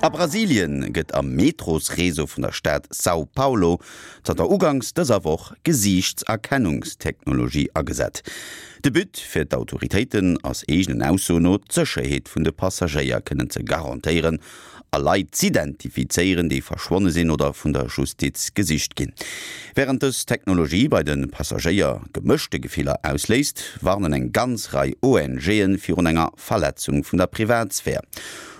A Brasilien gëtt am Metrosreseau vun der Stad São Paulo zanter uganks dëser Woch Gesiichtserkennungstechnologie agesat. De But fir d'Autoritéiten ass eegenen Aussoen no, d'Sécherheet vun de Passagéier kënnen ze garantéieren a Leit z'identifizéieren, déi verschwonne sinn oder vun der Justiz gesicht ginn. Wärend dës Technologie bei de Passagéier gemëschte Gefiller ausléist, warnen eng ganz Rei ONGe virun enger Verletzung vun der Privatsphär.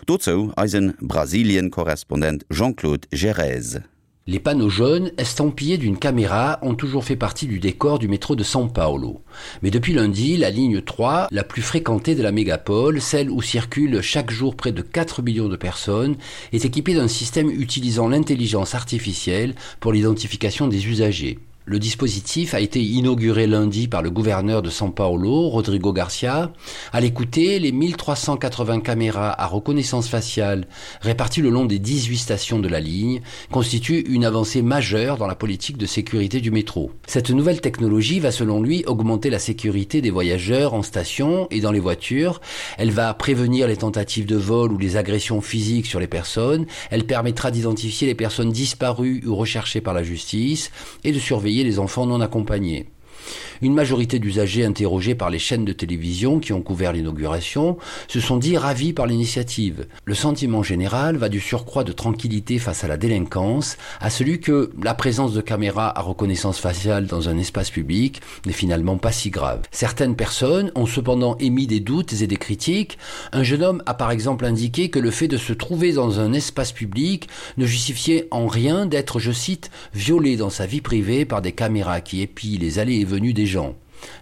Dozou eise Brasilien-Korrespondent Jean-Claude Gerez. Les panneaux jaunes estampillés d'une caméra ont toujours fait partie du décor du métro de São Paulo. Mais depuis lundi, la ligne 3, la plus fréquentée de la mégapole, celle où circulent chaque jour près de 4 millions de personnes, est équipée d'un système utilisant l'intelligence artificielle pour l'identification des usagers. Le dispositif a été inauguré lundi par le gouverneur de São Paulo, Rodrigo Garcia. À l'écouter, les 1380 caméras à reconnaissance faciale réparties le long des 18 stations de la ligne constituent une avancée majeure dans la politique de sécurité du métro. Cette nouvelle technologie va selon lui augmenter la sécurité des voyageurs en station et dans les voitures. Elle va prévenir les tentatives de vol ou les agressions physiques sur les personnes. Elle permettra d'identifier les personnes disparues ou recherchées par la justice et de surveiller les enfants non accompagnés. Une majorité d'usagers interrogés par les chaînes de télévision qui ont couvert l'inauguration se sont dit ravis par l'initiative. Le sentiment général va du surcroît de tranquillité face à la délinquance à celui que la présence de caméras à reconnaissance faciale dans un espace public n'est finalement pas si grave. Certaines personnes ont cependant émis des doutes et des critiques. Un jeune homme a par exemple indiqué que le fait de se trouver dans un espace public ne justifiait en rien d'être, je cite, violé dans sa vie privée par des caméras qui épient les allées et venues des gens.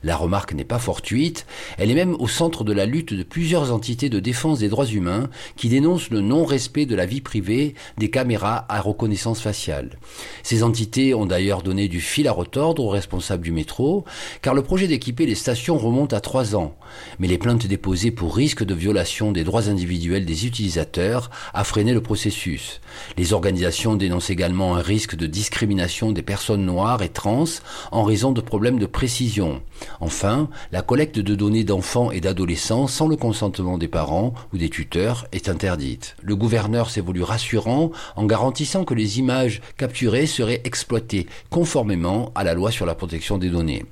La remarque n'est pas fortuite, elle est même au centre de la lutte de plusieurs entités de défense des droits humains qui dénoncent le non-respect de la vie privée des caméras à reconnaissance faciale. Ces entités ont d'ailleurs donné du fil à retordre aux responsables du métro, car le projet d'équiper les stations remonte à trois ans. Mais les plaintes déposées pour risque de violation des droits individuels des utilisateurs a freiné le processus. Les organisations dénoncent également un risque de discrimination des personnes noires et trans en raison de problèmes de précision. Enfin, la collecte de données d'enfants et d'adolescents sans le consentement des parents ou des tuteurs est interdite. Le gouverneur s'est voulu rassurant en garantissant que les images capturées seraient exploitées conformément à la loi sur la protection des données.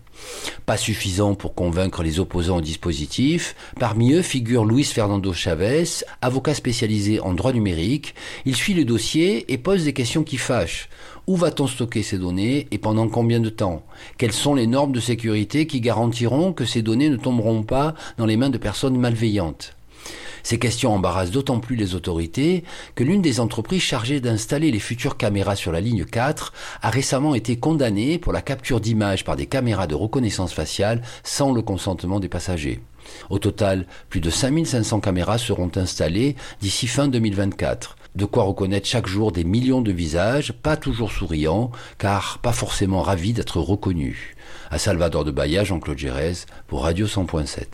Pas suffisant pour convaincre les opposants au dispositif, parmi eux figure Luis Fernando Chavez, avocat spécialisé en droit numérique. Il suit le dossier et pose des questions qui fâchent. Où va-t-on stocker ces données et pendant combien de temps Quelles sont les normes de sécurité qui garantiront que ces données ne tomberont pas dans les mains de personnes malveillantes Ces questions embarrassent d'autant plus les autorités que l'une des entreprises chargées d'installer les futures caméras sur la ligne 4 a récemment été condamnée pour la capture d'images par des caméras de reconnaissance faciale sans le consentement des passagers. Au total, plus de 5500 caméras seront installées d'ici fin 2024. De quoi reconnaître chaque jour des millions de visages, pas toujours souriants, car pas forcément ravis d'être reconnus. À Salvador de Bahia, Jean-Claude Gérez pour Radio 100.7.